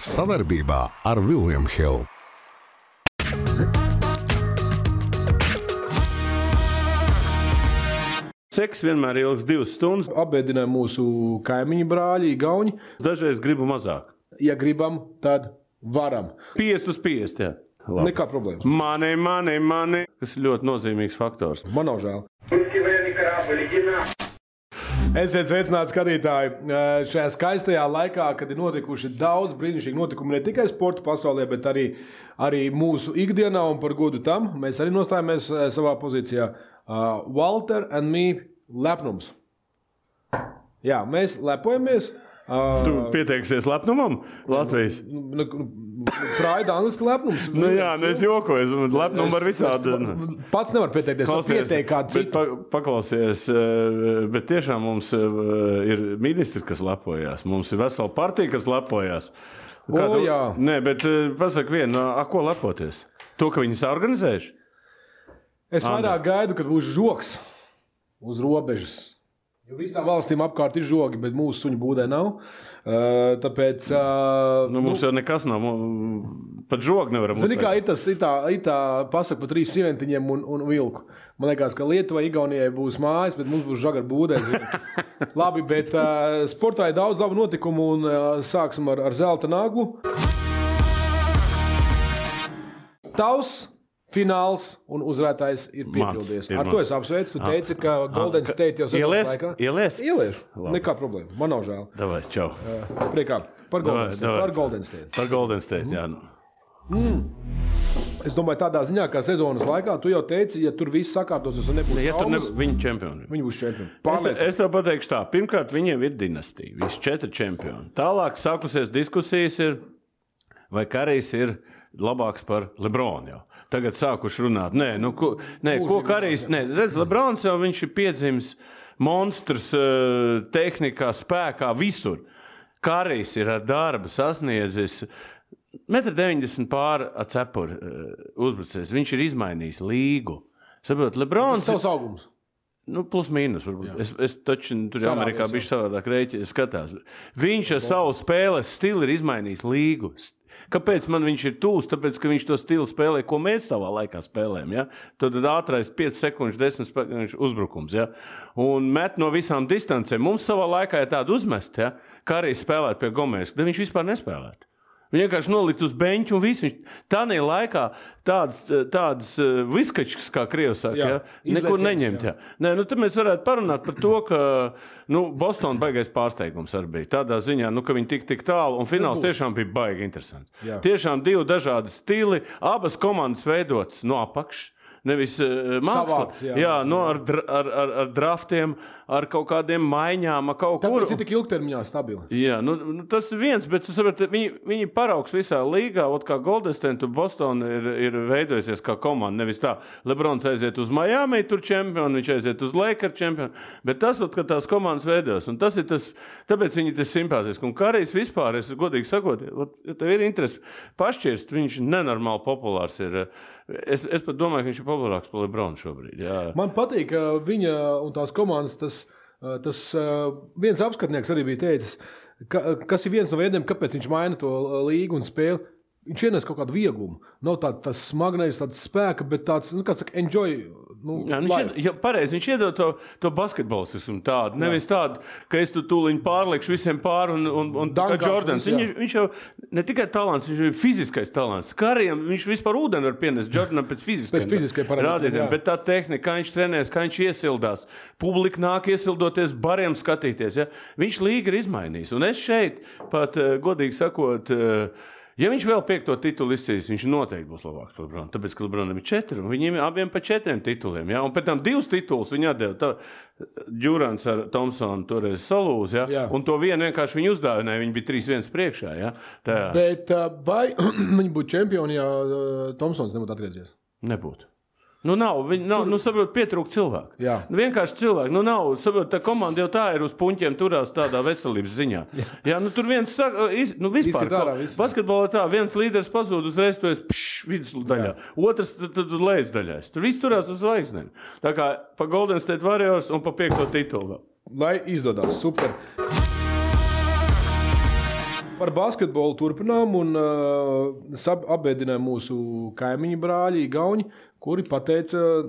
Savarbībā ar William Hill. Seks vienmēr ilgs 2 stundas. Apbēdināja mūsu kaimiņu brāļi, Igauņi. Dažreiz gribu mazāk. Ja gribam, tad varam. 50 uz 50, jā. Labi. Nekā problēmas. Mani. Tas ir ļoti nozīmīgs faktors. Man nav žēl. Esiet sveicināti skatītāji. Šajā skaistajā laikā, kad ir notikuši daudz brīnišķīgi notikumi ne tikai sporta pasaulē, bet arī mūsu ikdienā, un par godu tam mēs arī nostājamies savā pozīcijā. Walter and me lepnums. Jā, mēs lepojamies. Tu pieteiksies lepnumam Latvijas? Praida angliski lepnums. Jā, es jokoju. Lepnumu var visādi. Pats nevar pieteikties. Pieteikt kādu citu. Paklausies, bet tiešām mums ir ministri, kas lepojās. Mums ir vesela partija, kas lepojās. Jā. Nē, bet pasaka vienu, ko lepoties? To, ka viņi saorganizējuši? Es vairāk gaidu, kad būs žoks uz robežas. Jo visām valstīm apkārt ir žogi, bet mūsu suņu būdē nav. Tāpēc... mums jau nekas nav. Pat žogu nevaram uztvert. Zini, kā ir tā pasaka par 3 sieventiņiem un vilku. Man liekas, ka Lietuvai, Igaunijai būs mājas, bet mums būs žaga ar būdē. Labi, bet sportā ir daudz labu notikumu un sāksim ar zelta naglu. Tavs fināls un uzvarētājs ir piepildies. Ar to es apsveicu. Tu teici, ka Golden State jau sezonas laikā. Ieliešu. Nekā problēma. Man nav žēl. Davai, čau. Priekā. Par Golden State. Par Golden State, jā. Es domāju, tādā ziņā, kā sezonas laikā, tu jau teici, ja tur viss sakārtosies un nebūs traumas. Viņi čempioni. Viņi būs čempioni. Es tev pateikšu tā. Pirmkārt, viņiem ir dinastija. Visi 4 čempioni. Tālāk sākusies diskusijas ir, vai Karijs ir labāks par Lebronu jau. Tagad sākuši runāt. Ko Karijs... Redz, Lebrons jau viņš ir piedzimis monstrs tehnikā, spēkā, visur. Karijs ir ar darbu sasniedzis 1,90 m pāri ar cepuri uzbrucējs. Viņš ir izmainījis līgu. Saprot, Lebrons... Tas savs augums. Plus mīnus, varbūt. Es taču tur Amerikā bišķi savādāk rēķi skatās. Viņš ar savu spēles stilu ir izmainījis līgu. Kāpēc man viņš ir tūs? Tāpēc, ka viņš to stilu spēlē, ko mēs savā laikā spēlējam. Ja? Tad ātrais 5 sekundžu, 10 sekundžu uzbrukums. Ja? Un met no visām distancēm. Mums savā laikā ir tāda uzmest, ja? Kā arī spēlēt pie Gomēs, tad viņš vispār nespēlētu. Viņi vienkārši nolikt uz beņķu un visu. Tādā laikā tādas viskačkas, kā Krievi saka, ja? Nekur neņemt. Ja? Tad mēs varētu parunāt par to, ka Boston baigais pārsteigums arī bija. Tādā ziņā, ka viņi tik tālu, un fināls tiešām bija baigi interesants. Jā. Tiešām 2 dažādi stili, abas komandas veidotas no apakšas. Nevis māksla. Ar draftiem, ar kaut kādiem maiņām, ar kaut kur. Tāpēc ir tik ilgtermiņā stabili. Jā, tas ir viens, bet viņi paraugs visā līgā, kā Golden State un Boston ir veidojusies kā komanda. Nevis tā, Lebrons aiziet uz Miami, tur čempioni, viņš aiziet uz Lakers čempioni, bet tas, ka tās komandas veidojas, un tas ir tas, tāpēc viņi tas simpātiski. Un Karijs vispār, es godīgi sakot, ja tev ir interesi pašķirst, viņš nenormāli populārs ir. Es pat domāju, ka viņš ir populārāks par Lebronu šobrīd. Jā. Man patīk, ka viņa un tās komandas, tas viens apskatnieks arī bija teicis, kas ir viens no veidiem, kāpēc viņš maina to līgu un spēli. Viņš ienes kaut kādu vieglumu. Nav tāds smagnējs, tāds spēka, bet tāds, kā saka, enjoy. Pareizi, viņš iedod to basketbolistismu tādu. Nevis tādu, ka es tu tūliņ pārliekšu visiem pāri un kā Jordans. Viņš jau ne tikai talants, viņš ir fiziskais talants. Karijam viņš vispār ūdeni var pienest Jordanam pēc fiziskai rādītēm. Bet tā tehnika, kā viņš trenēs, kā viņš iesildās. Publika nāk iesildoties, bariem skatīties. Ja? Viņš līga ir izmainījis. Un es šeit pat, godīgi sakot, ja viņš vēl 5. titulu izcīs, viņš noteikti būs labāks par Lebronu. Tāpēc, ka Lebronam ir 4, un viņiem abiem pa 4 tituliem. Ja? Un pēc tam 2 titulus viņi atdeva. Durants ar Thompsonu toreiz salūz, ja? Un to vienu vienkārši viņi uzdāvināja. Viņi bija 3-1 priekšā. Ja? Bet vai viņi būtu čempioni, ja Thompsons nebūtu atgriezies? Nebūtu. Saprot, pietrūk cilvēku. Vienkārši cilvēku. Saprot, tā komanda jau tā ir uz puņķiem turās tādā veselības ziņā. Tur viens saka, vispār, basketbolā tā, viens līderis pazūd uzreiz, tu esi vidusdaļā. Otrs tad lejas daļās. Tur viss turās uz zvaigznēm. Tā kā pa Golden State Warriors un pa 5. titulu. Lai izdodās, super. Par basketbolu turpinām un apbēdināja mūsu kaimiņu brāļi, Igauņi, kuri pateica,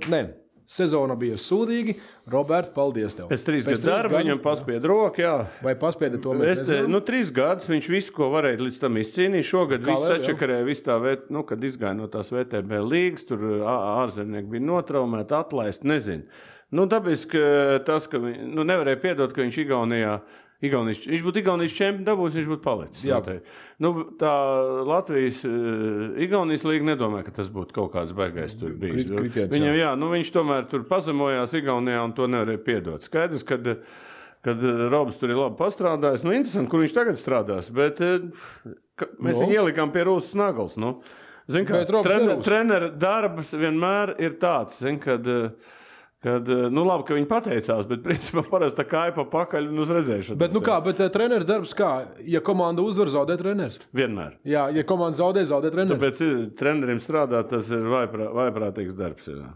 sezona bija sūdīgi. Robert, paldies tev. Pēc 3 gadu darba viņam paspied roku, jā. Vai paspieda to mēs nezinām? 3 gadus viņš visu, ko varēja līdz tam izcīnīt. Šogad viss sačakarēja, viss tā, kad izgāja no tās VTB līgas, tur ārzemnieki bija notraumēti, atlaist, nezinu. Tāpēc, ka tas, ka nevarēja piedot, ka viņš viņš būtu Igaunijas čempions dabūs, viņš būtu palicis. Tā Latvijas Igaunijas līga nedomāja, ka tas būtu kaut kāds baigais tur bijis. Viņam, viņš tomēr tur pazemojās Igaunijā un to nevarēja piedot. Skaidrs, kad Robs tur ir labi pastrādājis. Interesanti, kur viņš tagad strādās, bet mēs viņu ielikām pie Rūsas Nagals. Trenera darbs vienmēr ir tāds, labi, ka viņi pateicās, bet principā parasti tā kāja pa pakaļ un uz redzēšanu. Bet treneru darbs kā? Ja komanda uzvar, zaudē treneris? Vienmēr. Jā, ja komanda zaudē treneris. Tāpēc trenerim strādāt, tas ir vaiprātīgs darbs. Jā.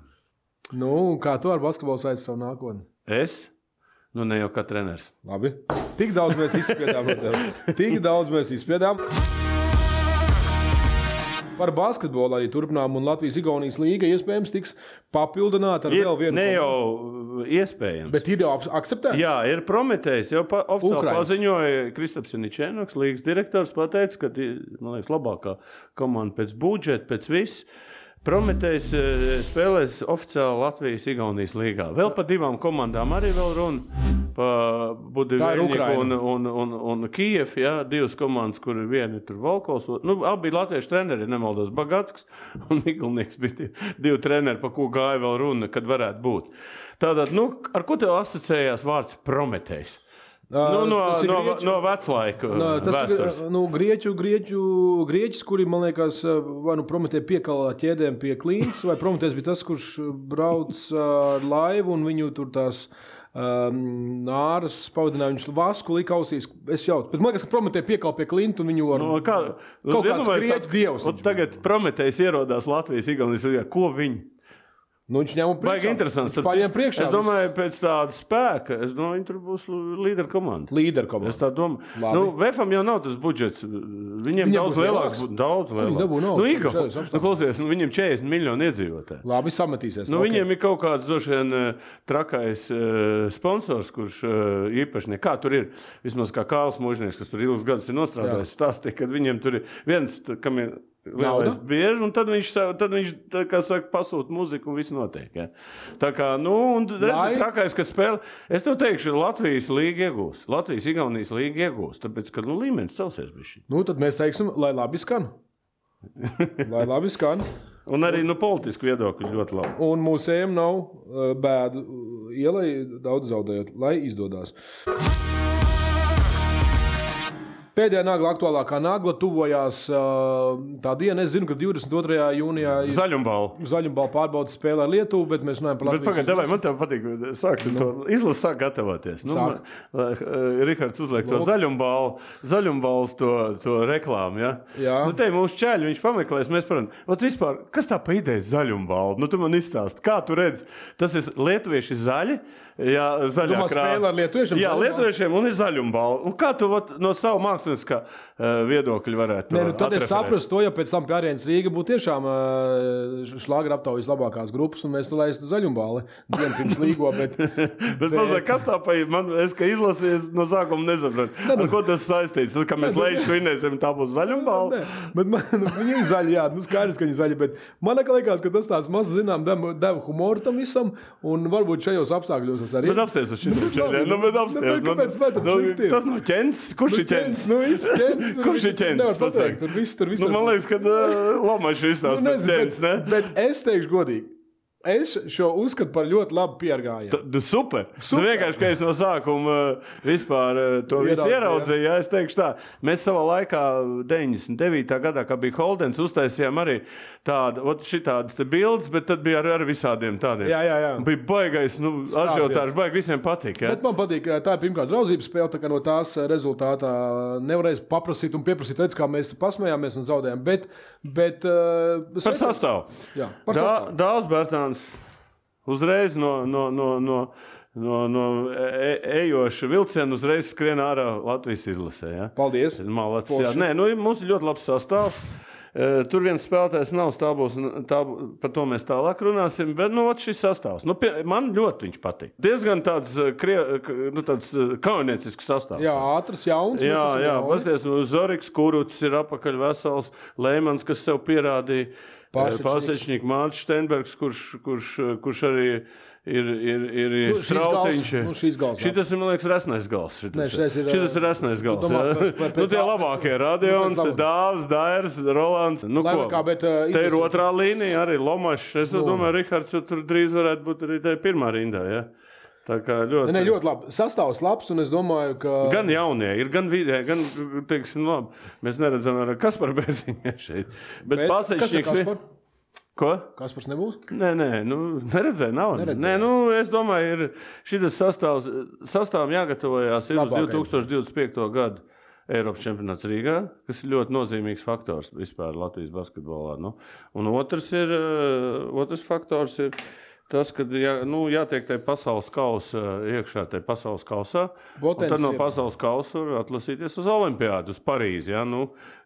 Kā tu ar basketbolu saisti savu nākotni? Es? Ne jau kā treneris. Labi. Tik daudz mēs izspiedām. Par basketbolu arī turpinām, un Latvijas-Igaunijas līga iespējams tiks papildināta ar vēl vienu. Ne jau iespējams. Bet ir jau akceptēts? Jā, ir Prometējs. Jau oficiāli paziņoja Kristaps Janičēnoks, līgas direktors, pateica, ka, man liekas, labākā komanda pēc budžeta, pēc viss. Prometējs spēlēs oficiāli Latvijas-Igaunijas līgā. Vēl pa 2 komandām arī vēl runa. Pa Budivēļņiku un Kijev, 2 komandas, kur viena ir tur Volkovs. Abi bija latviešu treneri, nemaldos, Bagatskis un Miglnieks bija 2 treneri, pa ko gāja vēl runa, kad varētu būt. Tātad, ar ko tev asociējās vārds Prometējs? No veclaika vēstures. Grieķis, kuri, man liekas, vai Prometēja piekalā ķēdēm pie Klīnas, vai Prometējs bija tas, kurš brauc ar laivu un viņu tur tās nāras pavadināja, viņš vasku lika ausīs. Es jautu. Bet man liekas, ka Prometēja piekal pie Klintu un viņu ar kaut kāds grieķu dievs. Tagad Prometējs ierodās Latvijas-Igaunijas līgā. Ko viņi? Viņš ņem priekšā. Baigi interesants. Es domāju, pēc tāda spēka, viņi tur būs līderu komanda. Es tā domāju. Vefam jau nav tas budžets. Viņiem daudz lielāks. Klausies, viņiem 40 miljoni iedzīvotāji. Labi, sametīsies. Viņiem ir kaut kāds došien trakais sponsors, kurš īpaši kā tur ir. Vismaz kā Kāls Mužnieks, kas tur ilgus gadus ir nostrādājis, stāstīja, kad viņiem tur ir viens, kam ir lielais bieži, un tad viņš kā saka, pasūta muziku un viss notiek. Ja? Tā kā, un redzi, trakais, ka spēle. Es tev teikšu, Latvijas līga iegūs. Latvijas-Igaunijas līga iegūs, tāpēc, ka līmenis celsies bišķi. Tad mēs teiksim, lai labi skan. Un arī politiski viedokļi ļoti labi. Un mūsējiem nav bēdu ielai daudz zaudējot, lai izdodās. Pēdējā nagla, aktuālākā nagla, tuvojās tā diena. Es zinu, ka 22. jūnijā ir Zaļumbala pārbaudas spēlē ar Lietuvu, bet mēs runājam par Latvijas izlasi. Bet pagaid, man tev patīk, sāksim to izlasi, sāk gatavoties. Rihards uzliek to Zaļumbalas to reklāmu, ja? Jā. Te mūsu čēļi, viņš pameklēs, mēs param, vispār, kas tā pa ideja Zaļumbala? Tu man izstāsti, kā tu redzi? Tas ir lietuvieši zaļi, jā, zaļā krāsa. Jā, lietuviešiem un ir Zaļumbala. Un kā tu no savu mākslinieckā viedokļi varētu tad es saprastu to, ja pēc tam pie Arēnas Rīga būtu tiešām šlāgra aptaujas labākās grupas, un mēs laistu Zaļumbali dienu pirms līgo, bet mazāk, kas tā pa es, ka izlasies no sākuma nesapratu. Ar ko tas saistīts? Tad, ka mēs lejuši svinēsim, tā būs Zaļumbali? Bet viņi ir zaļi, jā, skaidrs, ka viņi zaļi, bet man liekas, ka tas tāds maz zinām deva humoru tam visam, un varbūt šajos apstākļos es arī. Bet apsties uz šitiem. Tas nav ķents? Kurš ir ķents? Kurš ir ķents? Man liekas, ka Lomačs izstāst pēc ķents, ne? Bet es teikšu godīgi. Es šo uzskatu par ļoti labu piergājienu. Super. Vienkārši, ka es no sākuma vispār to visu ieraudzīju, es teikšu tā. Mēs savā laikā 99. gadā, kā bija Holdens, uztaisījām arī šitādas te bildes, bet tad bija ar visādiem tādiem. Jā. Bija baigais, ažiotārs, baigi visiem patīk. Ja? Bet man patīk, tā ir pirmkārt draudzības spēle, tā kā no tās rezultātā nevarēs paprasīt un pieprasīt, redz, kā mēs pasmējāmies un zaudējām. Bet par sastāvu. Jā, par sastāvu. Dāls Bērtāns uzreiz no no ejoša vilciena uzreiz skrien ārā Latvijas izlasē. Ja? Paldies. Malacis, Nē, mums ir ļoti labs sastāvs. Tur viens spēlētājs nav stāvos, par to mēs tālāk runāsim, bet šis sastāvs. Man ļoti viņš patīk. Diezgan tāds kauniecisks sastāvs. Jā, ātrs, jauns. Jā, pasties, Zoriks Kuruts ir apakaļ vesels, Leimans, kas sev pierādīja, Pasečņik, Mārts Steinbergs, kurš arī ir Strautiņš. Šitas ir, man liekas, resnais gals. Šitas ir resnais gals. Tie labākie Radions, Dāvs, Dairs, Rolands. Te ir otrā līnija, arī Lomašs. Es domāju, Rihards tur drīz varētu būt arī te pirmā rindā, ja? Tā kā ļoti... ļoti labi. Sastāvs labs, un es domāju, ka... Gan jaunie ir, gan vidē, gan, teiksim, labi. Mēs neredzam ar Kaspar Beziņē šeit. Bet Pasečņiks... Kas ir Kaspar? Ko? Kaspars nebūs? Nē, neredzēju, nav. Nē, es domāju, šitas sastāvam jāgatavojās ir uz 2025. gadu Eiropas čempionāts Rīgā, kas ir ļoti nozīmīgs faktors vispār Latvijas basketbolā. Un otrs faktors ir tas, kad jātiek tai pasaules kausa iekšā, tai pasaules kausā, un tad no pasaules kausa var atlasīties uz Olimpiādu, uz Parīzi. Ja?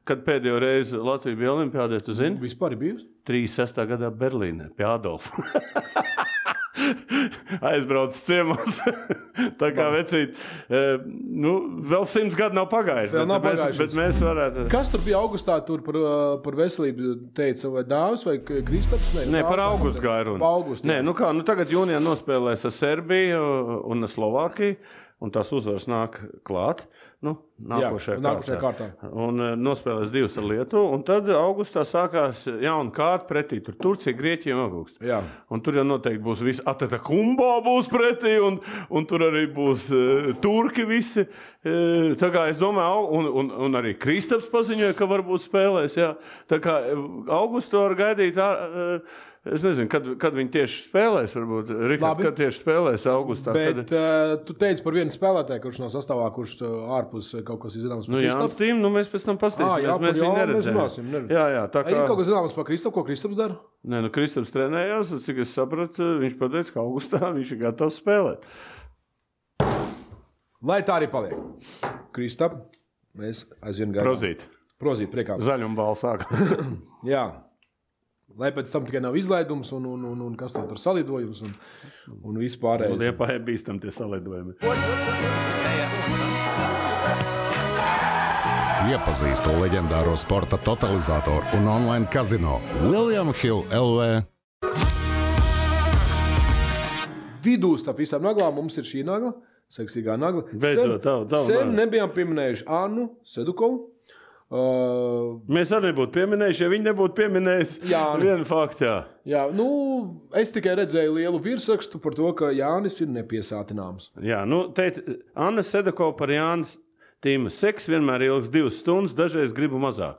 Kad pēdējo reizi Latvija bija Olimpiādē, tu zini? Vispār ir bijusi? 36. gadā Berlīnē, pie Adolfa. Aizbrauc ciemos. Tā kā vecīt, vēl 100 gadu nav pagājuši, bet mēs varētu... Kas tur bija augustā tur par veselību teica, vai Dāvs vai Kristaps? Nē, par augustu gāju runa. Nē, tagad jūnijā nospēlēs ar Serbiju un ar Slovākiju, un tās uzvaras nāk klāt. Nākošajā kārtā. Un nospēlēs 2 ar Lietuvu, un tad augustā sākās jauna kārta pretī. Tur Turcija, Grieķija un augustā. Jā. Un tur jau noteikti būs visi Atetakumbo būs pretī, un tur arī būs turki visi. Tā kā es domāju, un arī Kristaps paziņoja, ka varbūt spēlēs. Jā. Tā kā augustu var gaidīt... Es nezinu, kad viņi tieši spēlēs, varbūt. Rikard, kad tieši spēlēs augustā. Bet tu teici par vienu spēlētāju, kurš nav sastāvā, kurš ārpus kaut kas ir zināms par Kristapu? Jānis Tīm, mēs pēc tam pastīsimies, mēs viņu neredzējām. Jā, tā kā... Ir kaut kas zināms par Kristapu, ko Kristaps dara? Nē, Kristaps trenējās, un cik es sapratu, viņš pateica, ka augustā viņš ir gatavs spēlēt. Lai tā arī paliek. Kristap, mēs aizvien gaidām. Prozīt, priekā. Zaļumbāla sāka. Jā. Lai pēc tam tikai nav izlaidums un kas tā tur salidojums un vispārējais. Liepā ir bīstam tie salidojumi. Iepazīstu leģendāro sporta totalizatoru un online kazino William Hill LV. Vidū starp visām naglām mums ir šī nagla, seksīgā nagla. Sen nebijām pieminējuši Annu Sedukovu. Mēs arī nebūtu pieminējuši, ja viņi nebūtu pieminējuši vienu faktu. Jā, es tikai redzēju lielu virsrakstu par to, ka Jānis ir nepiesātināms. Jā, Anna Sedakova par Jānis Tīma. Seks vienmēr ilgs 2 stundas, dažreiz gribu mazāk.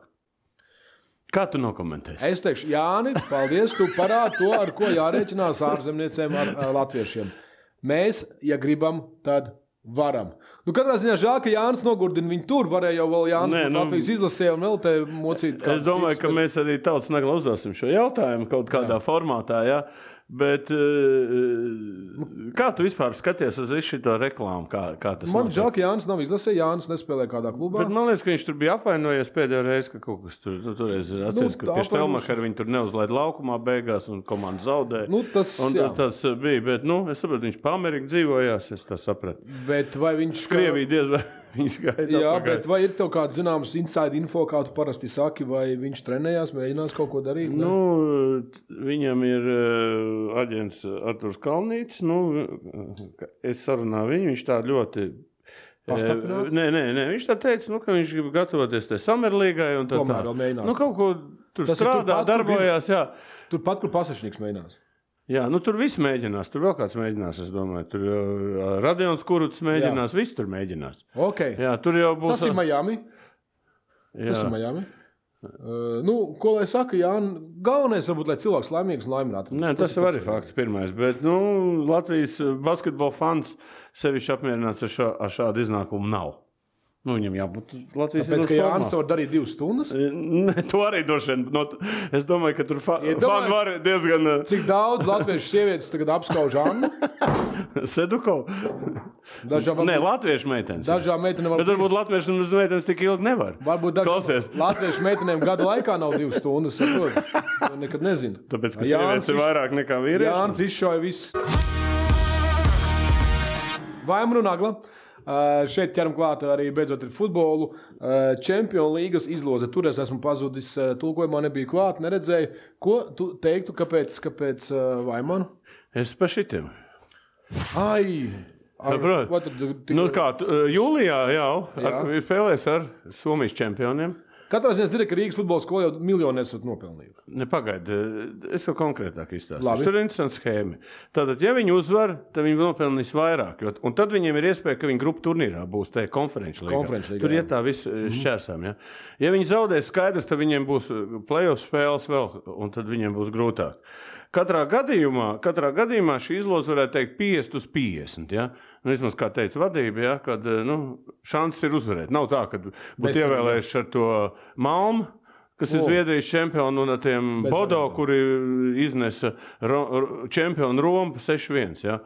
Kā tu nokomentēsi? Es teikšu, Jāni, paldies, tu parādi to, ar ko jārēķinās ārzemniecēm ar latviešiem. Mēs, ja gribam, tad varam. Katrā ziņā žēl, ka Jānis nogurdina viņu tur. Varēja jau vēl Jānis Latvijas izlasē un vēl te mocīt. Es domāju, ka mēs arī tautas nagla uzdosim šo jautājumu kaut kādā formātā, jā. Bet kā tu vispār skaties uz visu šito reklāmu? Kā tas man žēl, ka Jānis nav izlasē, Jānis nespēlē kādā klubā. Bet man liekas, ka viņš tur bija apvainojies pēdējo reizi, ka kaut kas tur atceries, ka pie Štelmachera viņi tur neuzlaid laukumā beigās un komanda zaudēja. Tas bija, bet es sapratu, viņš pa Ameriku dzīvojās, es tā sapratu. Bet vai viņš... Krievija diez vai viņš gaida. Jā, bet vai ir tev kāds zināms inside info, kā tu parasti saki, vai viņš trenējās, mēģinās kaut ko darīt? Viņam ir aģents Arturs Kalnītis, es sarunāju viņu, viņš tā ļoti... Pastaprināti? Nē, viņš tā teica, ka viņš grib gatavoties te Samerlīgai un tā. Tomēr vēl mēģinās. Kaut ko tur strādā, darbojās, jā. Turpat, kur Pasečņiks mēģinās. Jā, tur viss mēģinās, tur vēl kāds mēģinās, es domāju. Tur Radions Kuruts mēģinās, viss tur mēģinās. Okay. Jā, tur jau būs... Tas ir Miami. Ko lai saka, galvenais varbūt, lai cilvēks laimīgs un laimināts. Nē, tas ir arī fakts pirmais, bet Latvijas basketbola fans sevišķi apmierināts ar šādu iznākumu nav. Viņam jābūt Latvijas izlases formā. Tāpēc, ka Jānis to var darīt 2 stundas? Ne, to arī droši vien. Es domāju, ka tur fani var diezgan... Cik daudz latviešu sievietes tagad apskauž Annu? Sedukov? Nē, latviešu meitenes. Dažām meitenēm Bet varbūt latviešu meitenes tik ilgi nevar. Varbūt dažām latviešu meitenēm gada laikā nav 2 stundas, saprot. Nekad nezinu. Tāpēc, ka sievietes ir vairāk nekā vīrieši. Jānis izšauja visu. Vaimanu Nagla. Šeit ķeram klāt arī beidzot ir futbolu. Čempionu līgas izloze. Tur es esmu pazudis, tulkojumā nebija klāt, neredzēju. Ko tu teiktu, kāpēc Vaimanu? Es pa šitiem. Ai! Jūlijā jau spēlēs ar Somijas čempioniem. Katrā ziņā zina, ka Rīgas futbola skola jau miljonu esat nopelnījuši. Nepagaidi, es jau konkrētāk izstāstīšu. Tur ir interesanti schēma. Tātad, ja viņi uzvar, tad viņi nopelnīs vairāk. Un tad viņiem ir iespēja, ka viņi grupu turnīrā būs te konferenču līgā. Tur iet tā viss šķērsām. Ja? Ja viņi zaudēs skaidrs, tad viņiem būs play-off spēles vēl, un tad viņiem būs grūtāk. Katrā gadījumā šī izloze varētu teikt 50/50. Ja? Vismaz, kā teica vadība, ja? Kad šanses ir uzvarēt. Nav tā, ka būtu ievēlējuši ar to Malmu, kas ir Zviedrijas čempioni, un ar tiem Bodo, kuri iznesa čempionu Romu 6-1. Ja?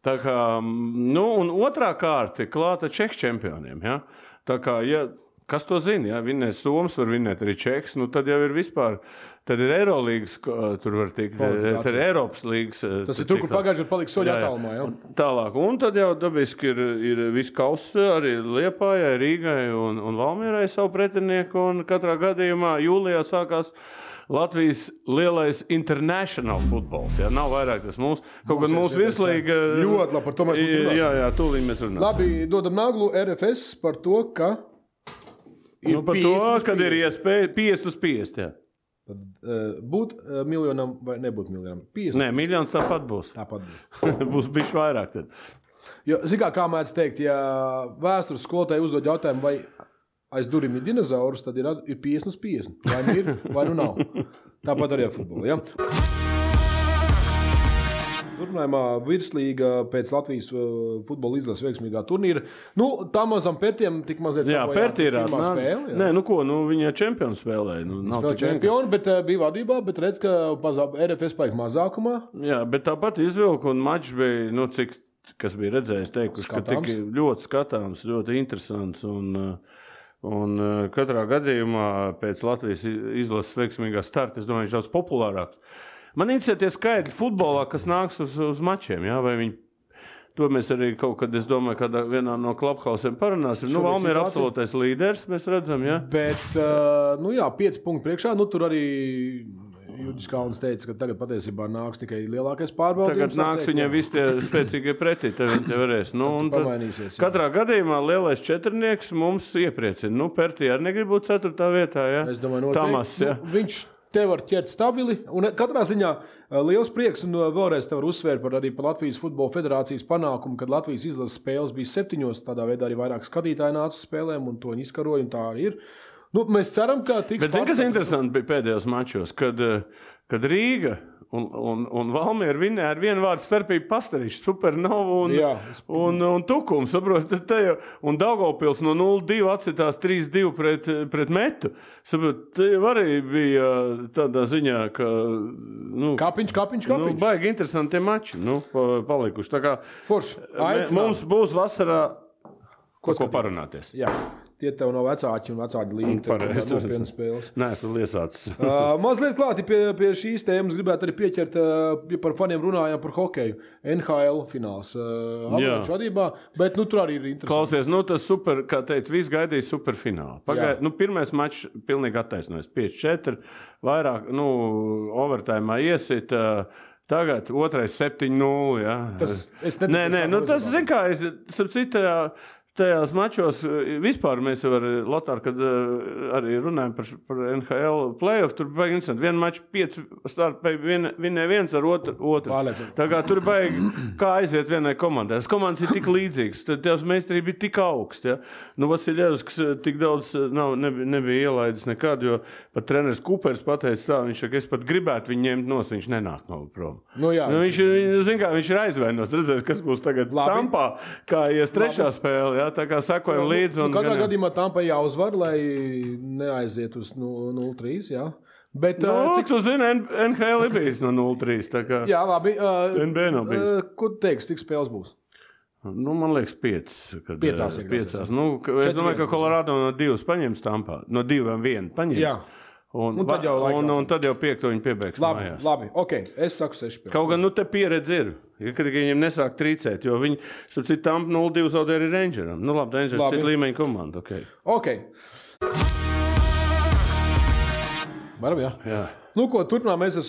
Tā kā, un otrā kārta ir klāta Čehu čempioniem. Ja? Tā kā, kas to zina? Ja? Vinnēs Soms, var vinnēt arī Čehs, tad jau ir vispār. Tad ir Eirolīgas, tur var tikt, tad ir Eiropas līgas. Tas ir tur, kur pagājuši ir paliks soļi attālumā, jā? Tālāk, un tad jau dabiski ir viss kauss arī Liepājai, Rīgai un Valmierai savu pretinieku, un katrā gadījumā jūlijā sākās Latvijas lielais international futbols, jā, nav vairāk tas mūsu, kaut gan mūsu virslīga. Ļoti labi, par to mēs runāsim. Jā, tūlīt mēs runāsim. Labi, dodam Naglu RFS par to, ka ir par to, kad ir iespēja 50/50, jā. Būt miljonam vai nebūt miljonam? 50. Nē, miljons tāpat būs. Būs bišķi vairāk tad. Jo, kā mēdz teikt, ja vēstures skolotāji uzdod jautājumu, vai aiz durvīm ir dinozaurus, tad ir 50/50. Vai nu ir, vai nu nav. Tāpat arī ar futbolu, ja? Turpinājumā virslīga pēc Latvijas futbola izlases veiksmīgā turnīra. Tā mazam Pertiem tik mazliet pirmā spēle. Nē, viņa čempionu spēlēja. Spēlēja čempionu, bet bija vadībā, bet redz, ka RFS paik mazākumā. Jā, bet tāpat izvilka un mačs bija, kas bija redzējis, teikuši, ka tik ļoti skatāms, ļoti interesants un katrā gadījumā pēc Latvijas izlases veiksmīgā starta, es domāju, viņš daudz populārāks. Man interesē tie skaidri futbolā, kas nāks uz mačiem, jā, vai viņi, to mēs arī kaut kad, es domāju, kad vienā no klubhausiem parunāsim. Valmiera ir absolūtais līderis, mēs redzam, jā. Bet, 5 punkti priekšā, tur arī Judis Kalns teica, ka tagad patiesībā nāks tikai lielākais pārbaudījums. Tagad nāks viņiem visi tie spēcīgie pretī, tad viņi te varēs. Katrā gadījumā lielais četrnieks mums iepriecina. Pertī arī negrib būt 4. vietā, jā. Es domāju, Tamas, jā. Viņš te var ķert stabili, un katrā ziņā liels prieks, un vēlreiz te var uzsvērt par Latvijas futbola federācijas panākumu, kad Latvijas izlases spēles bija 7, tādā veidā arī vairāk skatītāji nāca uz spēlēm, un to viņi izkaroja, un tā arī ir. Mēs ceram, ka tiks... Bet kas interesanti bija pēdējos mačos, kad Rīga un Valmiera vinnēja ar vienu vārdu starpību Pastarīšu, Supernovu un Tukumu, saprot, un Daugavpils no 0-2 atsitās 3-2 pret Metu. Saprot, te arī bija tādā ziņā, ka... Kapiņš. Baigi interesanti tie mači, palikuši. Tā kā mums būs vasarā ko parunāties. Jā. Tie tev nav vecāki un vecāki līnija. Pareizi. Nopietnas spēles. Nē, esmu liesācis. Mazliet klāti pie šīs tēmas gribētu arī pieķert, par faniem runājām par hokeju. NHL fināls. Avalanču vadībā, bet tur arī ir interesanti. Klausies, tas super, kā teikt, viss gaidīja superfinālu. Pirmais mačs pilnīgi attaisnojas. 5-4, vairāk, overtājumā iesit. Tagad otrais 7-0, jā. Tas, zin kā, tajās mačos vispār mēs jau ar Lotāru, kad arī runājam par NHL playoff, tur baigi interesanti. Vienu maču 5 starta vinnēja viens ar otru. Tā kā tur baigi, kā aiziet vienai komandai. Tas komandas ir tik līdzīgs, tad tās meistarība ir tik augsts. Ja? Vasiljevs tik daudz nebija ielaidis nekad, jo pat treneris Kupers pateica tā, viņš saka, es pat gribētu viņu ņemt nost, viņš nenāk no prom. Viņš ir aizvainots, redzēs, kas būs tagad Tampā, kā ies trešā spēle. Jā, tā kā sakojam līdzi. Katrā gadījumā Tampai jāuzvar, lai neaiziet uz 0-3, jā. Bet, cik tu zini, NHL ir bijis no 0-3. Tā kā jā, labi. NBA nav bijis. Ko tu teiksi, cik spēles būs? Nu, man liekas, 5. Piecās. Nu, es domāju, ka Colorado no 2 paņems Tampā. No 2-1 paņems. Jā. Un tad jau 5 viņi piebeigs mājās. Labi, ok, es saku 6 spēles. Kaut gan, te pieredze ir. Kad viņiem nesāk trīcēt, jo viņi, sapcīt, Tampa 0-2 zaudē arī Rangeram. Nu, labi, Rangers ir līmeņa komanda, ok. Varam, jā. Nu, ko, turpinām mēs ar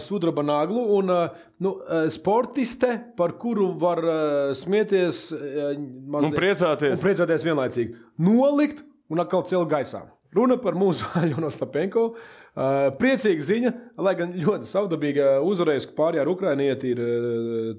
sudraba naglu un sportiste, par kuru var smieties un priecāties vienlaicīgi. Nolikt un atkal celt gaisā. Runa par mūsu Aļonu Ostapenko. Priecīga ziņa, lai gan ļoti savdabīga uzvarējusi pārējā ar Ukrainieti ir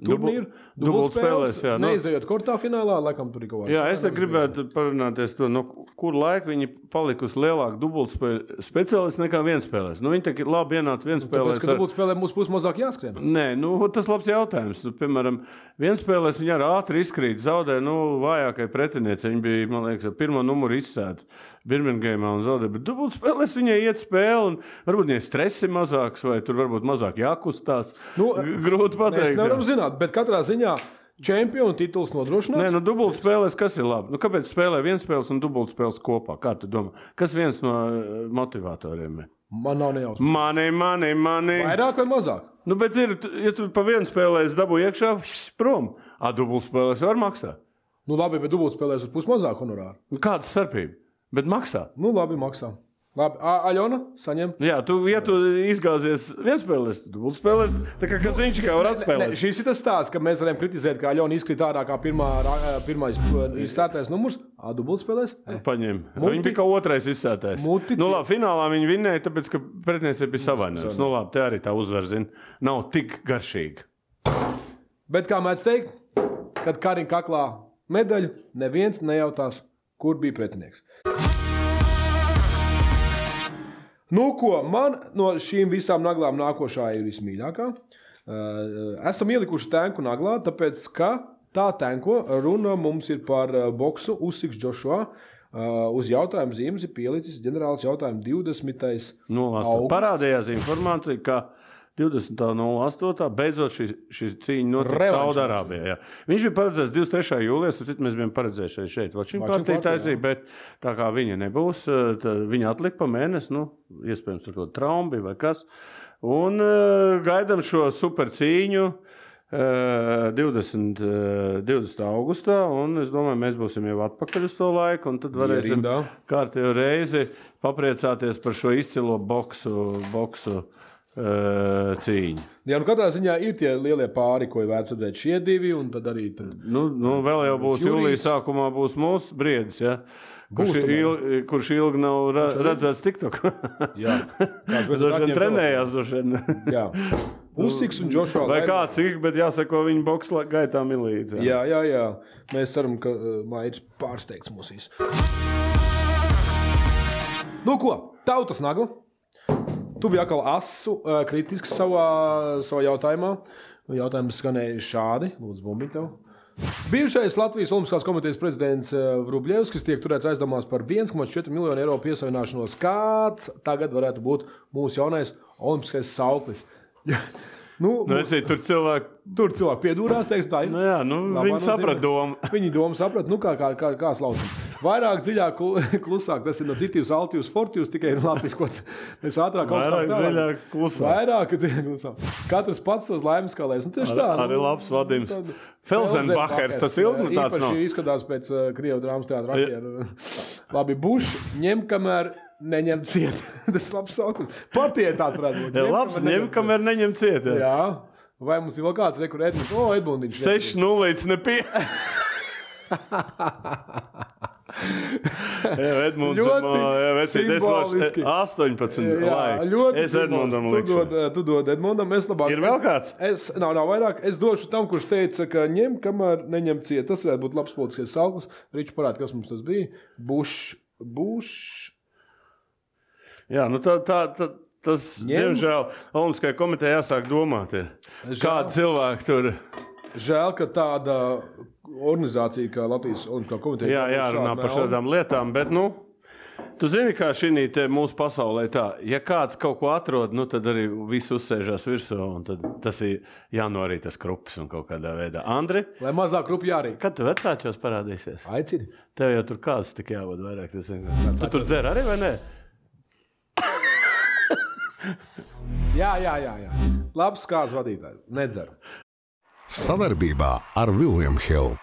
turnīru. Dubultspēlēs, jā. Neizejot kortā finālā, laikam tur ir kaut kāds. Jā, es te gribētu parunāties to, no kur laika viņi palikusi lielāku dubultspēļu speciālisti nekā vienspēlēs. Nu, viņi tā labi ienāca vienspēlēs. Tāpēc, ka dubultspēlē mums būs mazāk jāskrien. Nē, nu, tas labs jautājums. Tu, piemēram, vienspēlēs viņi ar ātri izkrīt, zaudē, vājākai pretinieci. Viņi bija, man liekas, ar pirmo numuru izsēta Birmingemā un zaudē, bet dubultspēlēs viņai iet spēle un varbūt viņai stresi mazāks vai tur varbūt mazāk jākustās. Grūti pateikt. Mēs nevaram zināt, bet katrā ziņā čempionu tituls nodrošināts. Nē, dubultspēlēs kas ir labi? Kāpēc spēlē vienspēles un dubultspēles kopā? Kā tu domā? Kas viens no motivatoriem ir? Man nav nejautājums. Mani. Vairāk vai mazāk? Nu, bet ir, ja tu pa vienu spēlēs dabū iekšā, prom. Dubultspēlēs var maksāt. Nu labi, bet dubultspēlēs uz pus mazāk honorāru. Kāda starpība? Bet maksā. Nu, labi, maksā. Labi, Aļona, saņem. Jā, ja tu izgāzies vienspēlēs, tu būtu spēlēs, tā kā viņš kā var atspēlēt. Šis ir tas stāsts, ka mēs varam kritizēt, ka Aļona izkrīt ārā kā pirmais izsētais numurs. Dubult spēlēs? Paņem. Viņi bija kā otrais izsētais. Nu labi, finālā viņi vinnēja, tāpēc, ka pretinieci bija savainojums. Nu labi, te arī tā uzvar, zin, nav tik garšīga. Bet kā mēdz teikt, kad Kariņa kaklā medaļu, neviens nejautās, kur bija pretinieks. Nu, ko, man no šīm visām naglām nākošā ir vismīļākā. Esam ielikuši tenku naglā, tāpēc, ka tā tenko runa mums ir par boksu Usyks Joshua. Uz jautājumu zīmes ir pielicis ģenerālis jautājumu 20. augusts. Parādījās informācija, ka 20.08. beidzot šī cīņa notika Saudarābijā. Viņš bija paredzēts 23. jūlijas, mēs bijām paredzējuši šeit. Vačim partija taisīja, bet tā kā viņa nebūs, viņa atlika pa mēnesi, iespējams tur kaut traumbi vai kas. Un gaidām šo super cīņu 20. augustā, un es domāju, mēs būsim jau atpakaļ uz to laiku, un tad varēsim kārtējo reizi papriecāties par šo izcilo boksu cīņu. Jā, katrā ziņā ir tie lielie pāri, ko ir vērts redzēt šie divi, un tad arī... vēl jau būs jūlijas sākumā būs mūsu briedis, ja? Kurš ilgi nav redzēts TikTok. Jā. Droši trenējās, Jā. Usyks un Joshua. Vai kāds ir, bet jāsako viņa boksa gaitām ir līdzi. Jā. Mēs ceram, ka Mairis pārsteigts mūs visu. Nu ko, tautas nagla. Tu biji atkal asu kritisks savā jautājumā. Jautājums skanēja šādi. Lūdzu, bumbiņ tev. Bijušais Latvijas Olimpiskās komitejas prezidents Vrubļevskis tiek turēts aizdomās par 1,4 miljonu eiro piesavināšanos. Kāds tagad varētu būt mūsu jaunais olimpiskais sauklis? Tur cilvēki piedūrās, teiksim, tā ir. Viņi saprat domu. Viņi domu saprat, kā slaucam. Vairāk dziļāk, klusāk, tas ir no citīvs, altījus, fortījus, tikai latviskots. Mēs ātrāk vairāk dziļāk, klusāk. Vairāk dziļāk, klusāk. Katrs pats savs laimes kalēs. Arī labs vadījums. Felsenbachers, tas ilgi tāds nav. Īpaši izskatās pēc Krievu drāmas teātra aktieru. Labi, Buš, ņem, kamēr neņem ciet. Tas ir labs saukums. Partijai tāds varētu būt. Labs, ņem, kamēr neņem ciet. Jā. Vai mums ir vēl kāds rekur Edmunds? Edmundiņš. 6-0 nepie. Ļoti simboliski. 18. Es Edmundam likšu. Tu dod Edmundam, es labāk. Ir vēl kāds? Nav vairāk. Es došu tam, kurš teica, ka ņem, kamēr neņem ciet. Tas varētu būt labs politiskais sauklis. Riču parāda, kas mums tas bija. Buš. Jā, tas, diemžēl, Olimpiskajai komitejai jāsāk domāt. Kādi cilvēki tur... Žēl, ka tāda organizācija kā Latvijas Olimpiskā komiteja... Jā, jārunā par šādām lietām, bet, Tu zini, kā šī mūsu pasaulē tā, ja kāds kaut ko atrod, nu tad arī viss uzsēžās virsū, un tad tas ir jānorīt tas krupis un kaut kādā veidā. Andri? Lai mazāk krupi jārīt. Kad tu vecāķos parādīsies? Aicini. Tev jau tur kāds tik jāvod vairāk. Tu tur dzer arī, vai ne? Jā. Labs kāds vadītājs. Nedzer. Sadarbībā ar William Hill.